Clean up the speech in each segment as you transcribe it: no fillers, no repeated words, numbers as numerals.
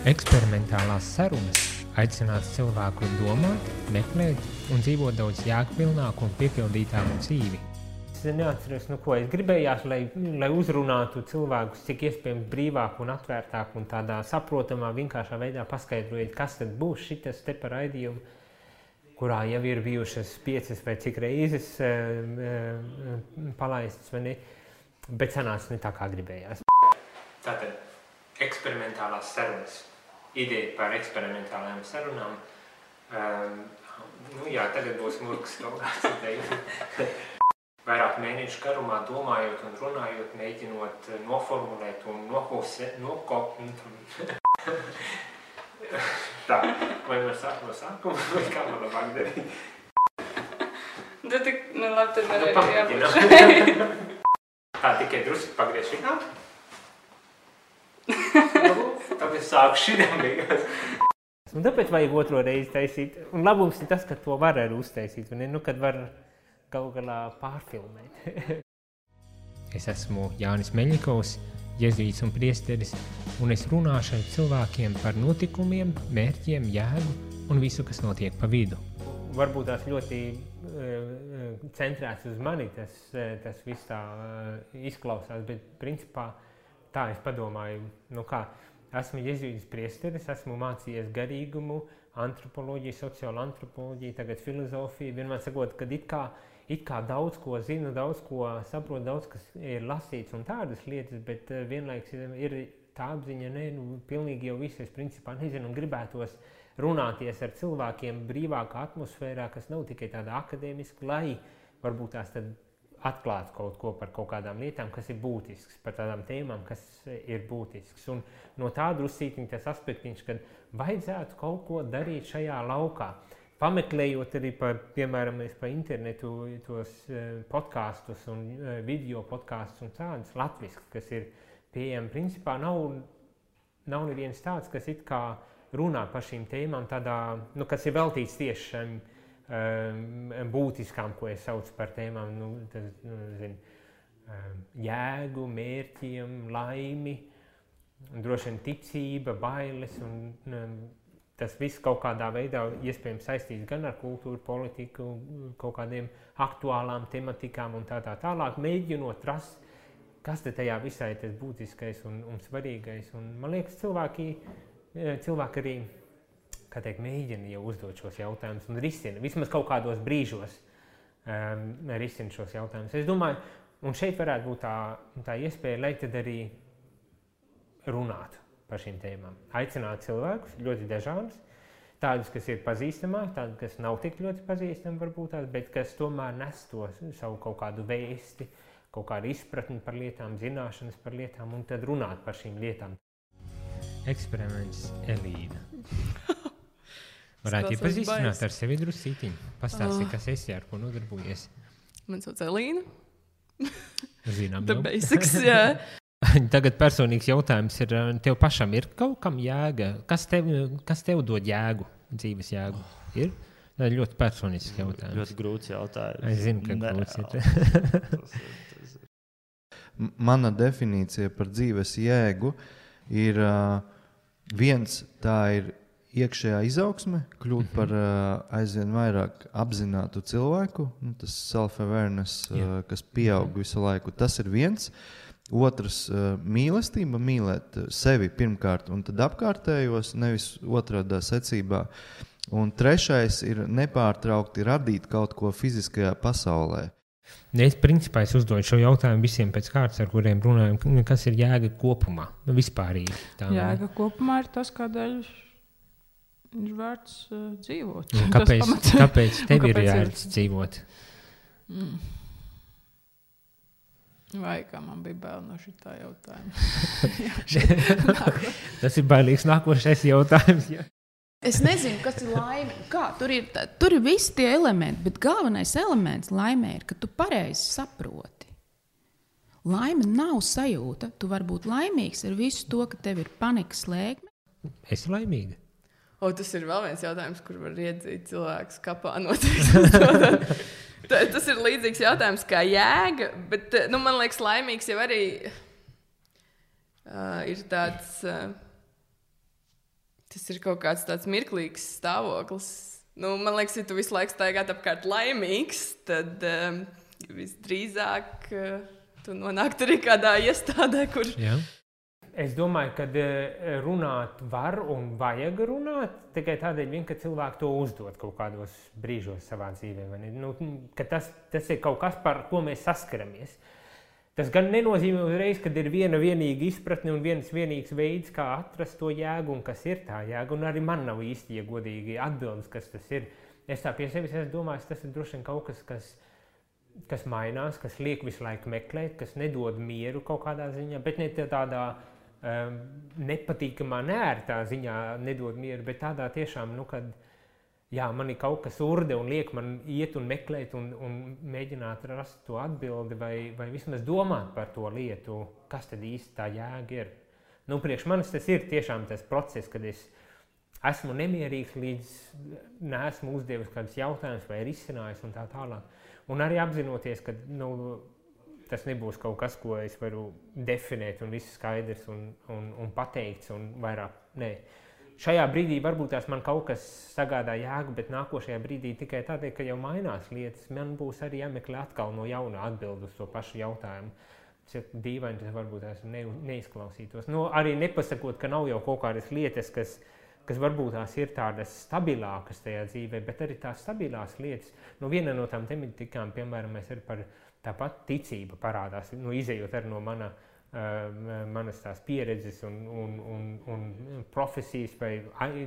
Eksperimentālās sarunas aicināts cilvēku domāt, meklēt un dzīvot daudz jēgpilnāku un piepildītāku dzīvi. Es neatceros, ko es gribējās, lai uzrunātu cilvēkus, cik iespējams brīvāk un atvērtāk un tādā saprotamā, vienkāršā veidā paskaidrojot, kas tad būs šitas te par raidījumu, kurā jau ir bijušas 5 vai cik reizes palaistas, vai ne? Bet sanāca ne tā, kā gribējās. Tātad, eksperimentālās sarunas. Ideja par eksperimentālajām sarunām. Tagad būs murgs kaut kāds. Vairāk mēnešu garumā domājot un runājot, mēģinot noformulēt un Tā, vai no sākuma, vai kā man labāk darīt? Labi, tad arī jābūt. Tā, tikai drusku pagriež šitā. Tad es sāku šitām beigās. Un tāpēc vajag otro reizi taisīt. Un labums ir tas, ka to var arī uztaisīt, un kad var galu galā pārfilmēt. Es esmu Jānis Meļņikovs, jezuīts un priesteris, un es runāšu ar cilvēkiem par notikumiem, mērķiem, jēgu un visu, kas notiek pa vidu. Varbūt tās ļoti centrēts uz mani, tas viss tā izklausās, bet principā tā es padomāju, esmu jezuīts priesteris, esmu mācījies garīgumu, antropoloģiju, sociālo antropoloģiju, tagad filozofiju, vienmēr sakot, kad it kā daudz ko zinu, daudz ko saprotu, daudz kas ir lasīts un tādas lietas, bet vienlaiks ir tā apziņa, pilnīgi jau visu es principā nezinu un gribētos runāties ar cilvēkiem brīvākā atmosfērā, kas nav tikai tāda akadēmiska, lai varbūt tās tad atklāt kaut ko par kaut kādām lietām, kas ir būtisks, par tādām tēmām, kas ir būtisks. Un no tā drusītiņ tas aspektiņš, kad vajadzētu kaut ko darīt šajā laukā. Pameklējot arī piemēram, pa internetu tos podkastus un video podkastus un tādus latviskus, kas ir pieejami. Principā nav neviens tāds, kas it kā runā par šīm tēmām tādā, kas ir veltīts tieši šiem būtiskām, ko es saucu par tēmām, jēgu, mērķiem, laimi, droši vien ticība, bailes, un tas viss kaut kādā veidā iespējams saistīts gan ar kultūru, politiku, kaut kādiem aktuālām tematikām un tā tālāk, mēģinot rast, kas te tajā visā ir tas būtiskais un svarīgais. Un man liekas, cilvēki arī mēģina jau uzdot šos jautājumus un risina, vismaz kaut kādos brīžos risina šos jautājumus. Es domāju, un šeit varētu būt tā iespēja, lai tad arī runātu par šīm tēmām. Aicināt cilvēkus, ļoti dažādus, tādus, kas ir pazīstamāk, tādus, kas nav tik ļoti pazīstami varbūt tās, bet kas tomēr nes to savu kaut kādu vēsti, kaut kādu izpratni par lietām, zināšanas par lietām un tad runāt par šīm lietām. Eksperiments Elīna. Varētu iepazīstināt ar sevi drusītiņu. Pastāsti, kas esi, ar ko nodarbojies. Man sauc Elīna. Zinām The jau. basics, jā. Tagad personīgs jautājums ir, tev pašam ir kaut kam jēga? Kas tev dod jēgu, dzīves jēgu? Ir? Tā ir ļoti personisks jautājums. Ļoti grūts jautājums. Es zinu, ka grūts ir. Mana definīcija par dzīves jēgu ir viens, tā ir iekšējā izaugsme, kļūt par aizvien vairāk apzinātu cilvēku, tas self-awareness, kas pieaug visu laiku, tas ir viens. Otrs, mīlestība, mīlēt sevi pirmkārt un tad apkārtējos, nevis otrādā secībā. Un trešais ir nepārtraukti radīt kaut ko fiziskajā pasaulē. Principā es uzdodu šo jautājumu visiem pēc kārtas, ar kuriem runājam, kas ir jēga kopumā, vispārīgi. Jēga kopumā ir tas, kādēļ ir vērts dzīvot. Kāpēc tev ir vērts dzīvot? Vai kā man bija bail no šitā jautājuma? Tas ir bailīgs nākošais jautājums. Ja? Es nezinu, kas ir laime. Tur ir visi tie elementi, bet galvenais elements laimē ir, ka tu pareizi saproti. Laime nav sajūta. Tu vari būt laimīgs ar visu to, ka tev ir panikas slēgme. Esi laimīga? Tas ir vēl viens jautājums, kur var iedzīt cilvēkus kapā noteikti. Tas ir līdzīgs jautājums kā jēga, bet man liekas, laimīgs jau arī ir tāds Tas ir kaut kāds tāds mirklīgs stāvoklis. Nu, man liekas, ja tu visu laiku staigāt apkārt laimīgs, tad visdrīzāk tu nonāktu arī kādā iestādē, kur... Jā. Es domāju, ka runāt var un vajag runāt, tikai tādēļ vien, ka cilvēki to uzdod kaut kādos brīžos savā dzīvē. Nu, ka tas ir kaut kas, par ko mēs saskaramies. Tas gan nenozīmē uzreiz, kad ir vienīga izpratne un viens vienīgs veids, kā atrast to jēgu un kas ir tā jēga. Un arī man nav īsti, ja godīgi, atbildes, kas tas ir. Es tā pie sevis domāju, tas ir droši vien kaut kas, kas mainās, kas liek visu laiku meklēt, kas nedod mieru kaut kādā ziņā, bet ne tādā nepatīkamā, neērtā ziņā nedod mieru, bet tādā tiešām, nu, kad jā, man ir kaut kas urde un liek man iet un meklēt un mēģināt rast to atbildi vai vismaz domāt par to lietu, kas tad īsti tā jēga ir. Nu, priekš manis tas ir tiešām tas process, kad es esmu nemierīgs, līdz neesmu uzdevis kādus jautājumus vai risinājis un tā tālāk. Un arī apzinoties, ka tas nebūs kaut kas, ko es varu definēt un viss skaidrs un pateikts un vairāk. Nē. Šajā brīdī varbūt tās man kaut kas sagādā jēgu, bet nākošajā brīdī tikai tādēļ, ka jau mainās lietas, man būs arī jāmeklē atkal no jauna atbildi uz to pašu jautājumu. Tas ir dīvaini, tas varbūt tās neizklausītos. Nu, arī nepasakot, ka nav jau kaut kādas lietas, kas varbūt tās ir tādas stabilākas tajā dzīvē, bet arī tās stabilās lietas. Nu, viena no tām tematikām, piemēram, mēs arī par tāpat ticība parādās, izejot arī no manas tās pieredzes un profesijas vai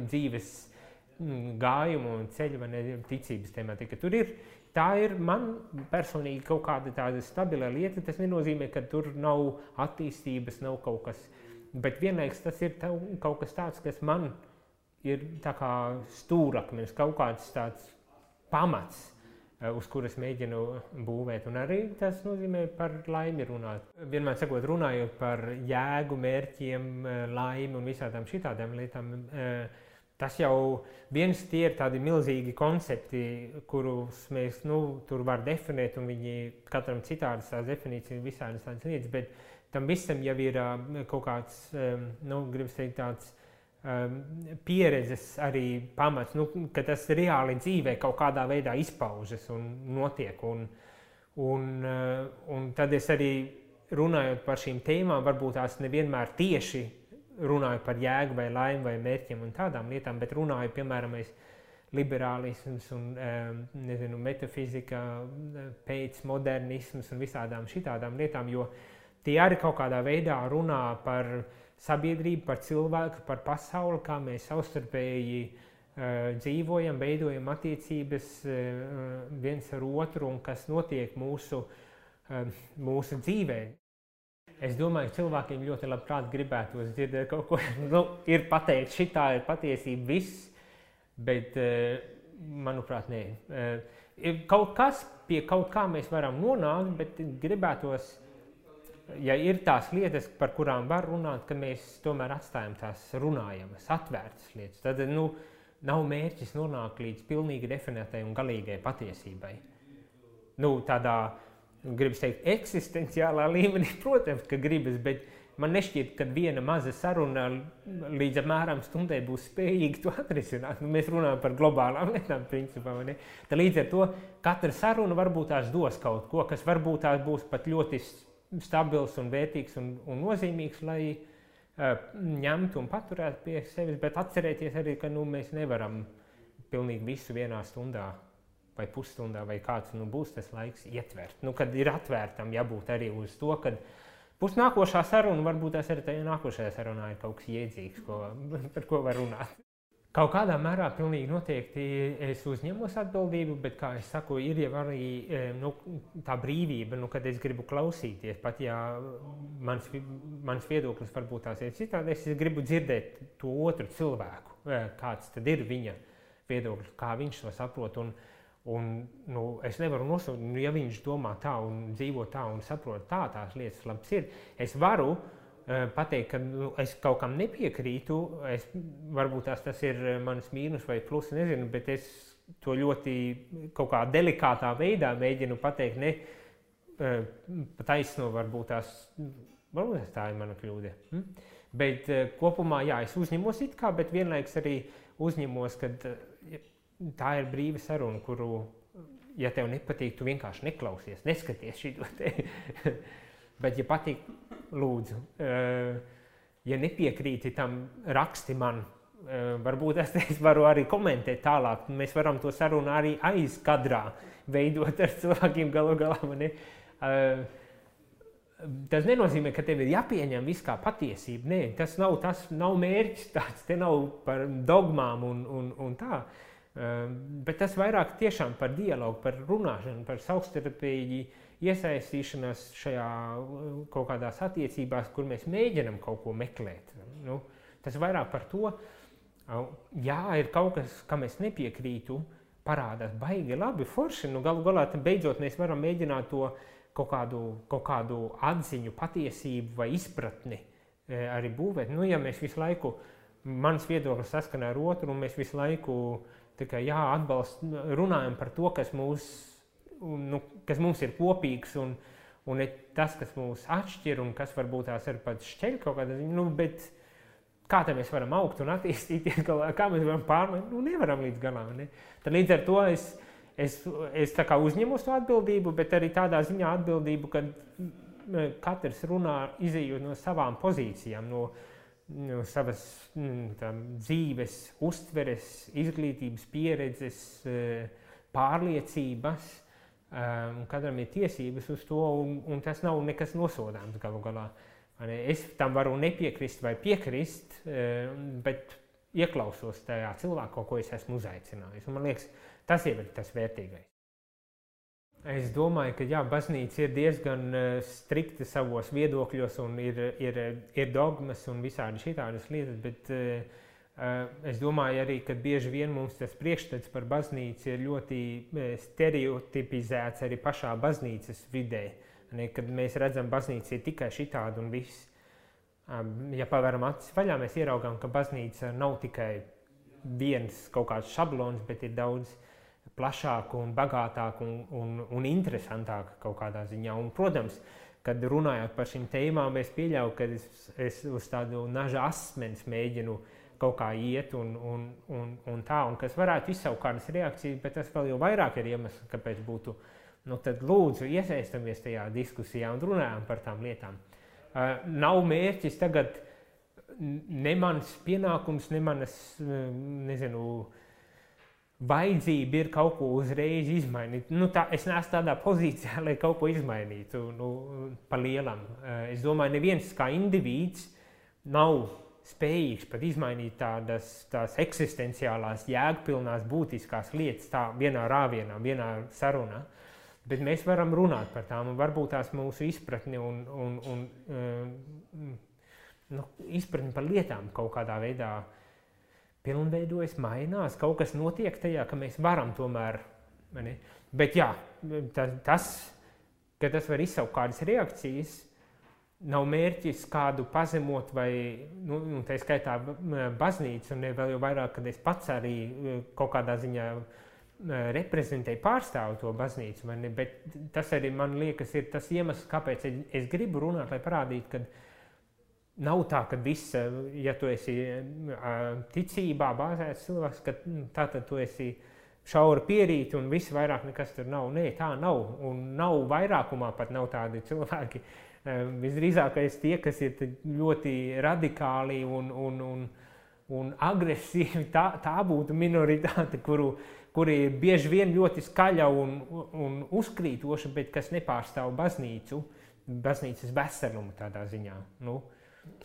dzīves gājumu un ceļu vai ticības tematika. Tā ir man personīgi kaut kāda tāda stabila lieta. Tas nenozīmē, ka tur nav attīstības, nav kaut kas, bet vienlaikus tas ir kaut kas tāds, kas man ir tā kā stūrakmenis, kaut kāds tāds pamats, uz kuras mēģinu būvēt. Un arī tas nozīmē par laimi runāt. Vienmēr sakot, runājot par jēgu, mērķiem, laimi un visādām šitādām lietām, tas jau viens tie ir tādi milzīgi koncepti, kurus mēs tur var definēt, un viņi katram citādas tās definīcijas, visādas tādas lietas, bet tam visam jau ir kaut kāds, gribas teikt, tāds pieredzes arī pamats, ka tas reāli dzīvē kaut kādā veidā izpaužas un notiek. Un tad es arī runājot par šīm tēmām, varbūt tās nevienmēr tieši runāju par jēgu vai laimi vai mērķiem un tādām lietām, bet runāju, piemēram, liberālisms un metafizika, pēcmodernisms un visādām šitādām lietām, jo tie arī kaut kādā veidā runā par sabiedrību, par cilvēku, par pasauli, kā mēs savstarpēji dzīvojam, veidojam attiecības viens ar otru un kas notiek mūsu dzīvē. Es domāju, ka cilvēkiem ļoti labprāt gribētos dzirdēt kaut ko, ir pateikt, šitā ir patiesība viss, bet, manuprāt, nē. Kaut kas pie kaut kā mēs varam nonākt, bet gribētos, ja ir tās lietas, par kurām var runāt, ka mēs tomēr atstājam tās runājamas, atvērtas lietas, tad nav mērķis nonākt līdz pilnīgi definētai un galīgai patiesībai. Tādā, gribas teikt, eksistenciālā līmenī, protams, ka gribas, bet man nešķiet, ka viena maza saruna līdz apmēram stundai būs spējīga to atrisināt. Mēs runājam par globālām lietām, principā, vai ne? Tad līdz ar to katra saruna varbūt tās dos kaut ko, kas varbūt tās būs pat ļoti stabils un vērtīgs un nozīmīgs, lai ņemtu un paturētu pie sevis, bet atcerēties arī, ka mēs nevaram pilnīgi visu vienā stundā vai pusstundā vai kāds būs tas laiks ietvert. Kad ir atvērtam jābūt arī uz to, kad būs nākošā saruna, varbūt tas arī tajā nākošajā sarunā ir kaut kas iedzīgs, par ko var runāt. Kaut kādā mērā pilnīgi noteikti es uzņemos atbildību, bet, kā es saku, ir jau arī tā brīvība, kad es gribu klausīties, pat ja mans viedoklis varbūt tās ir citādi, es gribu dzirdēt to otru cilvēku, kāds tad ir viņa viedoklis, kā viņš to saprot. Un es nevaru nosaukt, ja viņš domā tā un dzīvo tā un saprot tā, tās lietas labs ir, es varu pateikt, ka es kaut kam nepiekrītu, varbūt tas ir mans mīnus vai plus, nezinu, bet es to ļoti kaut kā delikātā veidā mēģinu pateikt, ne taisno varbūt tā ir mana kļūda. Bet kopumā, jā, es uzņemos it kā, bet vienlaiks arī uzņemos, ka tā ir brīva saruna, kuru, ja tev nepatīk, tu vienkārši neklausies, neskaties šito te. Bet, ja patīk, lūdzu, ja nepiekrīti tam, raksti man, varbūt es varu arī komentēt tālāk, mēs varam to sarunu arī aiz kadrā veidot ar cilvēkiem galu galā. Tas nenozīmē, ka tev ir jāpieņem viss kā patiesība. Nē, tas nav mērķis tāds, te nav par dogmām un tā. Bet tas vairāk tiešām par dialogu, par runāšanu, par savstarpēji iesaistīšanās šajā kaut kādās attiecībās, kur mēs mēģinam kaut ko meklēt. Nu, tas vairāk par to, jā, ir kaut kas, kam es nepiekrītu, parādās baigi labi, forši. Nu, galu galā beidzot mēs varam mēģināt to kaut kādu atziņu, patiesību vai izpratni arī būvēt. Nu, ja mēs visu laiku, mans viedoklis saskanē ar otru, un mēs visu laiku tikai runājam par to, kas mums ir kopīgs, un tas, kas mūs atšķir, un kas varbūt tās ir pat šķeļ kaut kādā ziņā, nu, bet kā tā mēs varam augt un attīstīties, kā mēs varam pārmēt, nu, nevaram līdz galām, ne? Tad līdz ar to es tā kā uzņemos to atbildību, bet arī tādā ziņā atbildību, kad katrs runā izejot no savām pozīcijām, no savas dzīves, uztveres, izglītības, pieredzes, pārliecības, un katram ir tiesības uz to, un tas nav nekas nosodāms galu galā. Es tam varu nepiekrist vai piekrist, bet ieklausos tajā cilvēku, ko es esmu uzaicinājis. Un man liekas, tas ir tas vērtīgais. Es domāju, ka jā, baznīca ir diezgan strikta savos viedokļos un ir dogmas un visādi šitādas lietas, bet es domāju arī, ka bieži vien mums tas priekšstats par baznīcu ir ļoti stereotipizēts arī pašā baznīcas vidē. Kad mēs redzam, baznīca ir tikai šitāda un viss. Ja pavēram acis vaļā, mēs ieraugām, ka baznīca nav tikai viens kaut kāds šablons, bet ir daudz plašāk un bagātāk un interesantāk kaut kādā ziņā. Un, protams, kad runājot par šīm tēmām, es pieļauju, ka es uz tādu naža asmens mēģinu kaut kā iet un tā, un kas varētu izsaukt kādas reakcijas, bet tas vēl jau vairāk ir iemesls, kāpēc būtu. Nu, tad lūdzu iesaistamies tajā diskusijā un runājam par tām lietām. Nav mērķis tagad ne mans pienākums, ne manas, vajadzība ir kaut ko uzreiz izmainīt. Nu, es neesmu tādā pozīcijā, lai kaut ko izmainītu pa lielam. Es domāju, neviens kā indivīds nav spējīgs pat izmainīt tās eksistenciālās, jēgpilnās, būtiskās lietas tā vienā rāvienā, vienā sarunā. Bet mēs varam runāt par tām, un varbūt tās mūsu izpratni un izpratni par lietām kaut kādā veidā pilnveidojas, mainās, kaut kas notiek tajā, ka mēs varam tomēr, ne? Bet jā, ka tas var izsaukt kādas reakcijas, nav mērķis kādu pazemot vai, tā skaitā baznīcu, un vēl jau vairāk, kad es pats arī kaut kādā ziņā reprezentēju, pārstāvu to baznīcu, bet tas arī, man liekas, ir tas iemesls, kāpēc es gribu runāt, lai parādītu, ka nav tā, ka viss, ja tu esi ticībā bāzēts cilvēks, ka tātad tu esi šaura pierīti un viss vairāk nekas tur nav. Nē, tā nav, un nav vairākumā pat nav tādi cilvēki. Visdrīzākais tie, kas ir ļoti radikāli un agresīvi, tā būtu minoritāte, kuri ir bieži vien ļoti skaļa un uzkrītoša, bet kas nepārstāv baznīcas veselumu tādā ziņā.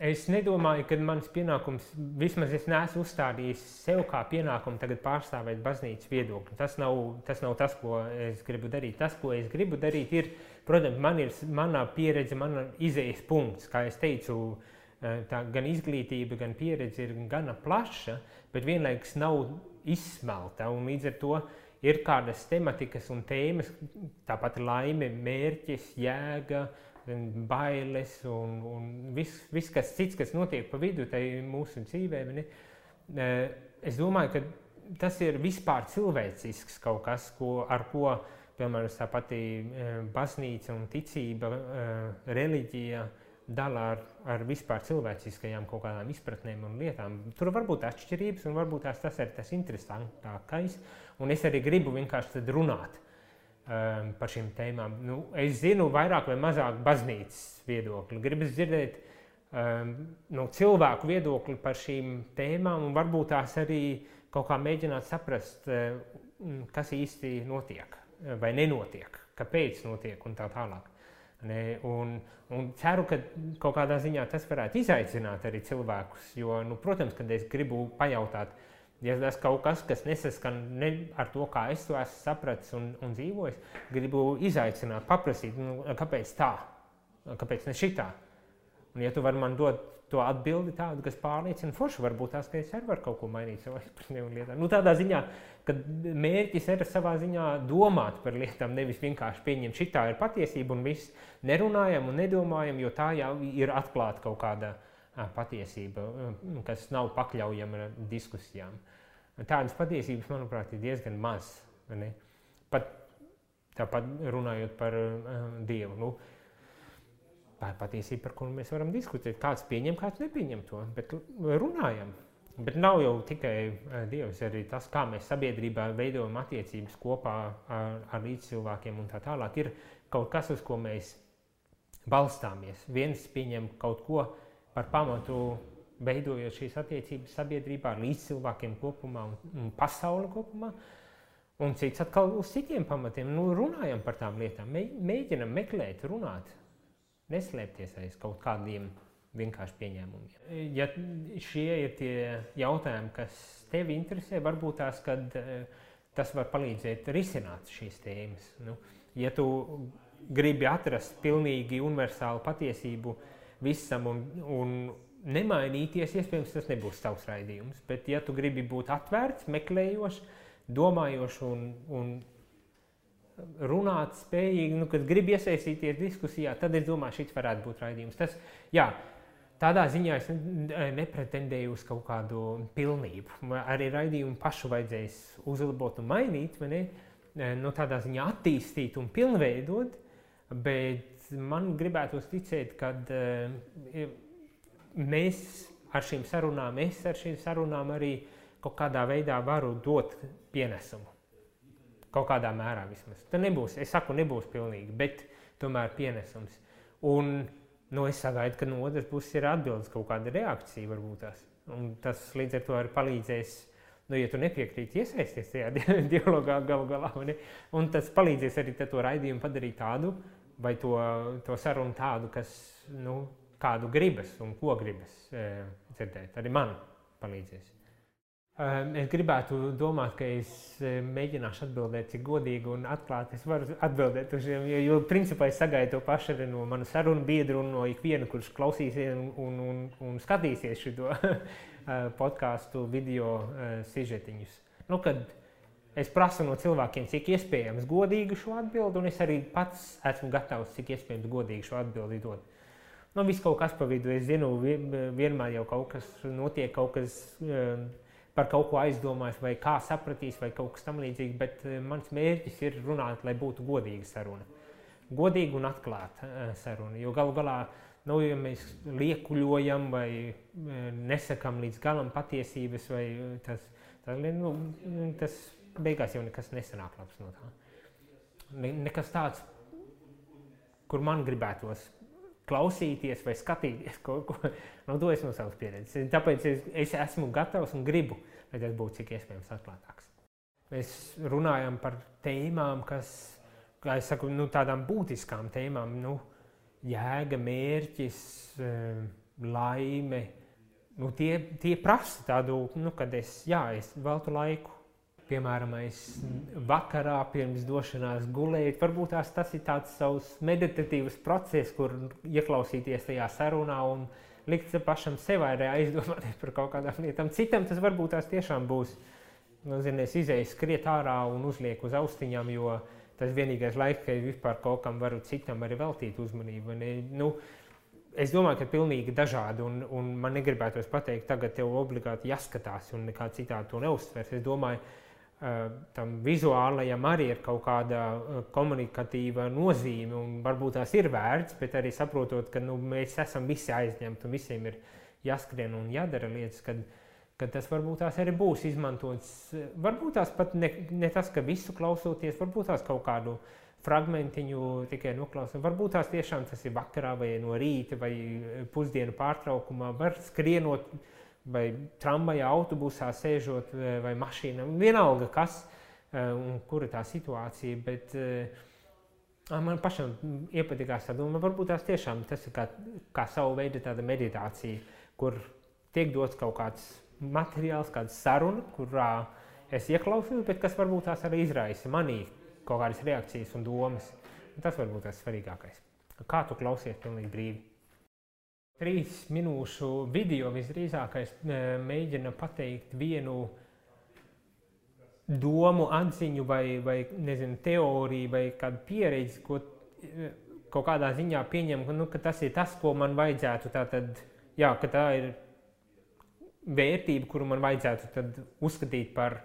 Es nedomāju, ka mans pienākums, vismaz es neesmu uzstādījis sev kā pienākumu tagad pārstāvēt baznīcas viedokli. Tas nav tas, ko es gribu darīt. Tas, ko es gribu darīt, ir, protams, mana pieredze, mana izejas punkts, kā es teicu, tā gan izglītība, gan pieredze ir gana plaša, bet vienlaikus nav izsmelta, un līdz ar to ir kādas tematikas un tēmas, tāpat laime, mērķis, jēga, bailes un viss kas cits, kas notiek pa vidu tai mūsu dzīvē. Es domāju, ka tas ir vispār cilvēcisks kaut kas, ar ko, piemēram, tā pati baznīca un ticība, reliģija dala ar vispār cilvēciskajām kaut kādām izpratnēm un lietām. Tur var būt atšķirības un varbūt tas ir tas interesantākais. Un es arī gribu vienkārši tad runāt par šīm tēmām. Nu, es zinu vairāk vai mazāk baznīcas viedokli. Gribu dzirdēt no cilvēku viedokli par šīm tēmām un varbūt tās arī kaut kā mēģināt saprast, kas īsti notiek vai nenotiek, kāpēc notiek un tā tālāk. Un ceru, ka kaut kādā ziņā tas varētu izaicināt arī cilvēkus, jo, protams, kad es gribu pajautāt, ja tas kaut kas nesaskan ar to, kā es to esmu sapratis un dzīvojis, gribu izaicināt, paprasīt, kāpēc tā, kāpēc ne šitā. Un ja tu vari man dot to atbildi tādu, kas pārliecina forši, varbūt tās, ka es arī varu kaut ko mainīt savā izpratnē un lietām. Tādā ziņā, ka mērķis ir savā ziņā domāt par lietām, nevis vienkārši pieņemt šitā ir patiesība un viss nerunājam un nedomājam, jo tā jau ir atklāta kaut kāda patiesība, kas nav pakļaujama diskusijām. Tādas patiesības, manuprāt, ir diezgan maz. Pat tāpat runājot par Dievu. Tā ir patiesība, par kuru mēs varam diskutēt. Kāds pieņem, kāds nepieņem to, bet runājam. Bet nav jau tikai Dievs, arī tas, kā mēs sabiedrībā veidojam attiecības kopā ar līdzcilvēkiem un tā tālāk, ir kaut kas, uz ko mēs balstāmies. Viens pieņem kaut ko par pamatu, veidojot šīs attiecības sabiedrībā ar līdzcilvēkiem kopumā un pasauli kopumā, un cits atkal uz citiem pamatiem. Runājam par tām lietām, mēģinam meklēt, runāt. Neslēpties aiz kaut kādiem vienkārši pieņēmumiem. Ja šie ir tie jautājumi, kas tevi interesē, varbūt tās, kad tas var palīdzēt risināt šīs tēmas. Ja tu gribi atrast pilnīgi universālu patiesību visam un nemainīties, iespējams, tas nebūs tavs raidījums. Bet ja tu gribi būt atvērts, meklējošs, domājošs un runāt spējīgi, kad grib iesaistīties diskusijā, tad es domāju, šis varētu būt raidījums. Tādā ziņā es nepretendēju uz kaut kādu pilnību. Arī raidījumu pašu vajadzēs uzlabot un mainīt, tādā ziņā attīstīt un pilnveidot, bet man gribētos ticēt, ka mēs ar šīm sarunām arī kaut kādā veidā varu dot pienesumu. Kaut kādā mērā vismaz. Tā nebūs, es saku, nebūs pilnīgi, bet tomēr pienesums. Un es sagaidu, ka no otras puses ir atbildes kaut kāda reakcija varbūt tās. Un tas līdz ar to arī palīdzēs, ja tu nepiekrīti iesaisties tajā dialogā galu galā, un tas palīdzēs arī to raidījumu padarīt tādu, vai to sarunu tādu, kas, kādu gribas un ko gribas dzirdēt. Arī man palīdzēs. Es gribētu domāt, ka es mēģināšu atbildēt, cik godīgi un atklāti es varu atbildēt uz šiem, jo principā es sagaidu to pašu arī no manu sarunu biedru un no ikviena, kurš klausīsies un skatīsies šito podcastu video sižetiņus. Kad es prasu no cilvēkiem, cik iespējams godīgi šo atbildi, un es arī pats esmu gatavs, cik iespējams godīgi šo atbildi dot. Viss kaut kas pa vidu, es zinu, vienmēr jau kaut kas notiek, kaut kas par kaut ko aizdomājas, vai kā sapratīs, vai kaut kas tam līdzīgi, bet mans mērķis ir runāt, lai būtu godīga saruna. Godīga un atklāta saruna, jo galu galā, ja mēs liekuļojam vai nesakam līdz galam patiesības, vai tas beigās jau nekas nesanāk labs no tā. Nekas tāds, kur man gribētos klausīties vai skatīties kaut ko, to es no savas pieredzes. Tāpēc es esmu gatavs un gribu, lai tas būtu cik iespējams atklātāks. Mēs runājam par tēmām, kas, kā es saku, tādām būtiskām tēmām, jēga, mērķis, laime, tie prasa tādu, kad es veltu laiku. Piemēram, vakarā pirms došanās gulēt, varbūt tas ir tāds savs meditatīvs process, kur ieklausīties tajā sarunā un likt pašam sev arī aizdomāties par kaut kādām lietām. Citam tas varbūt tās tiešām būs, es izēju skriet ārā un uzlieku uz austiņām, jo tas vienīgais laiks, ka vispār kaut kam varu citam arī veltīt uzmanību. Es domāju, ka pilnīgi dažādi, un man negribētos pateikt, tagad tev obligāti jāskatās un nekā citādi to neuzsvers. Es domāju, tam vizuālajam arī ir kaut kāda komunikatīva nozīme, un varbūt tās ir vērts, bet arī saprotot, ka mēs esam visi aizņemti un visiem ir jāskrien un jādara lietas, kad tas varbūt tās arī būs izmantots. Varbūt tās pat ne tas, ka visu klausoties, varbūt tās kaut kādu fragmentiņu tikai noklausot. Varbūt tās tiešām tas ir vakarā vai no rīta vai pusdienu pārtraukumā, var skrienot vai tramvajā, autobusā sēžot vai mašīnā. Vienalga kas un kura tā situācija, bet man pašam iepatikās tā doma. Varbūt tās tiešām tas ir kā savu veidu tāda meditācija, kur tiek dots kaut kāds materiāls, kāda saruna, kurā es ieklausos, bet kas varbūt tās arī izraisa manī kaut kādas reakcijas un domas. Un tas varbūt tas svarīgākais. Kā tu klausies pilnīgi brīvi? 3 minūšu video visdrīzākais mēģina pateikt vienu domu, atziņu vai nezinu, teoriju vai kādu pieredzi, ko kaut kādā ziņā pieņem, ka tas ir tas, ko man vajadzētu tātad, ka tā ir vērtība, kuru man vajadzētu tad uzskatīt par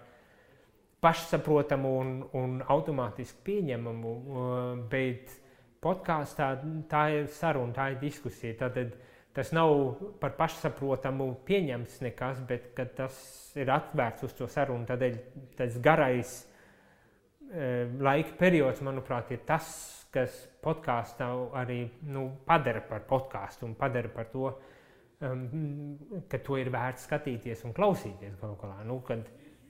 pašsaprotamu un automātiski pieņemamu, bet podkāstā tā ir saruna, tā ir diskusija. Tātad tas nav par pašsaprotamu pieņemts nekas, bet kad tas ir atvērts uz to sarunu, tādēļ tas garais laika periods, manuprāt, ir tas, kas podkāstā arī padara par podkāstu un padara par to, ka to ir vērts skatīties un klausīties kaut kā.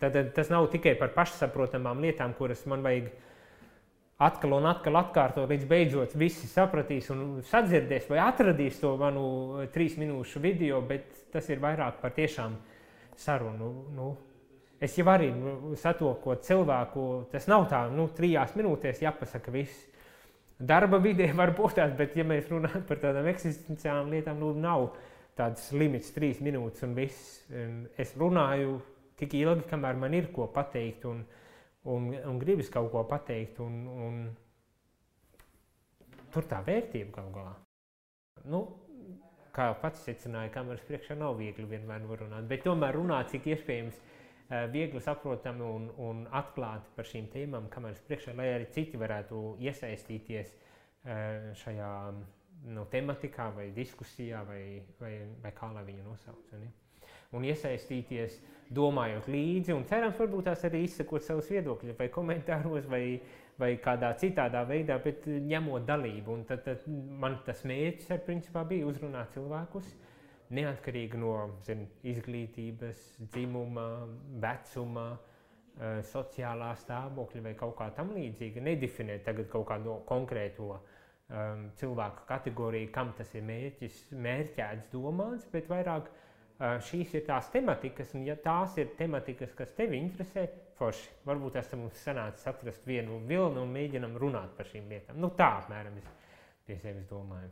Tad tas nav tikai par pašsaprotamām lietām, kuras man vajag atkal un atkal atkārtot, līdz beidzot visi sapratīs un sadzirdēs vai atradīs to manu 3 minūšu video, bet tas ir vairāk par tiešām sarunu. Es jau arī satokot cilvēku, tas nav tā, 3 minūtēs jāpasaka viss. Darba vidē var būt tāds, bet ja mēs runājam par tādām eksistenciālām lietām, nav tāds limits 3 minūtes un viss. Es runāju tik ilgi, kamēr man ir ko pateikt un gribas kaut ko pateikt, un tur tā vērtība kaut galā. Kā pats secināja, kameras priekšā nav viegli vienmēr runāt, bet tomēr runāt, cik iespējams viegli saprotami un atklāti par šīm tēmām kameras priekšā, lai arī citi varētu iesaistīties šajā tematikā vai diskusijā vai kā lai viņu nosauc. Un iesaistīties, domājot līdzi, un cerams, varbūt tās arī izsakot savus viedokļus, vai komentāros, vai kādā citādā veidā, bet ņemot dalību. Un tad man tas mērķis principā bija uzrunāt cilvēkus, neatkarīgi no izglītības, dzimuma, vecuma, sociālā stāvokļa vai kaut kā tam līdzīga. Nedefinēt tagad kaut kādu konkrēto cilvēku kategoriju, kam tas ir mērķēts domāts, bet vairāk šīs ir tās tematikas, un ja tās ir tematikas, kas tevi interesē, forši. Varbūt tas mums sanācis atrast vienu vilnu un mēģinam runāt par šīm lietām. Tā apmēram es pie sevis domāju.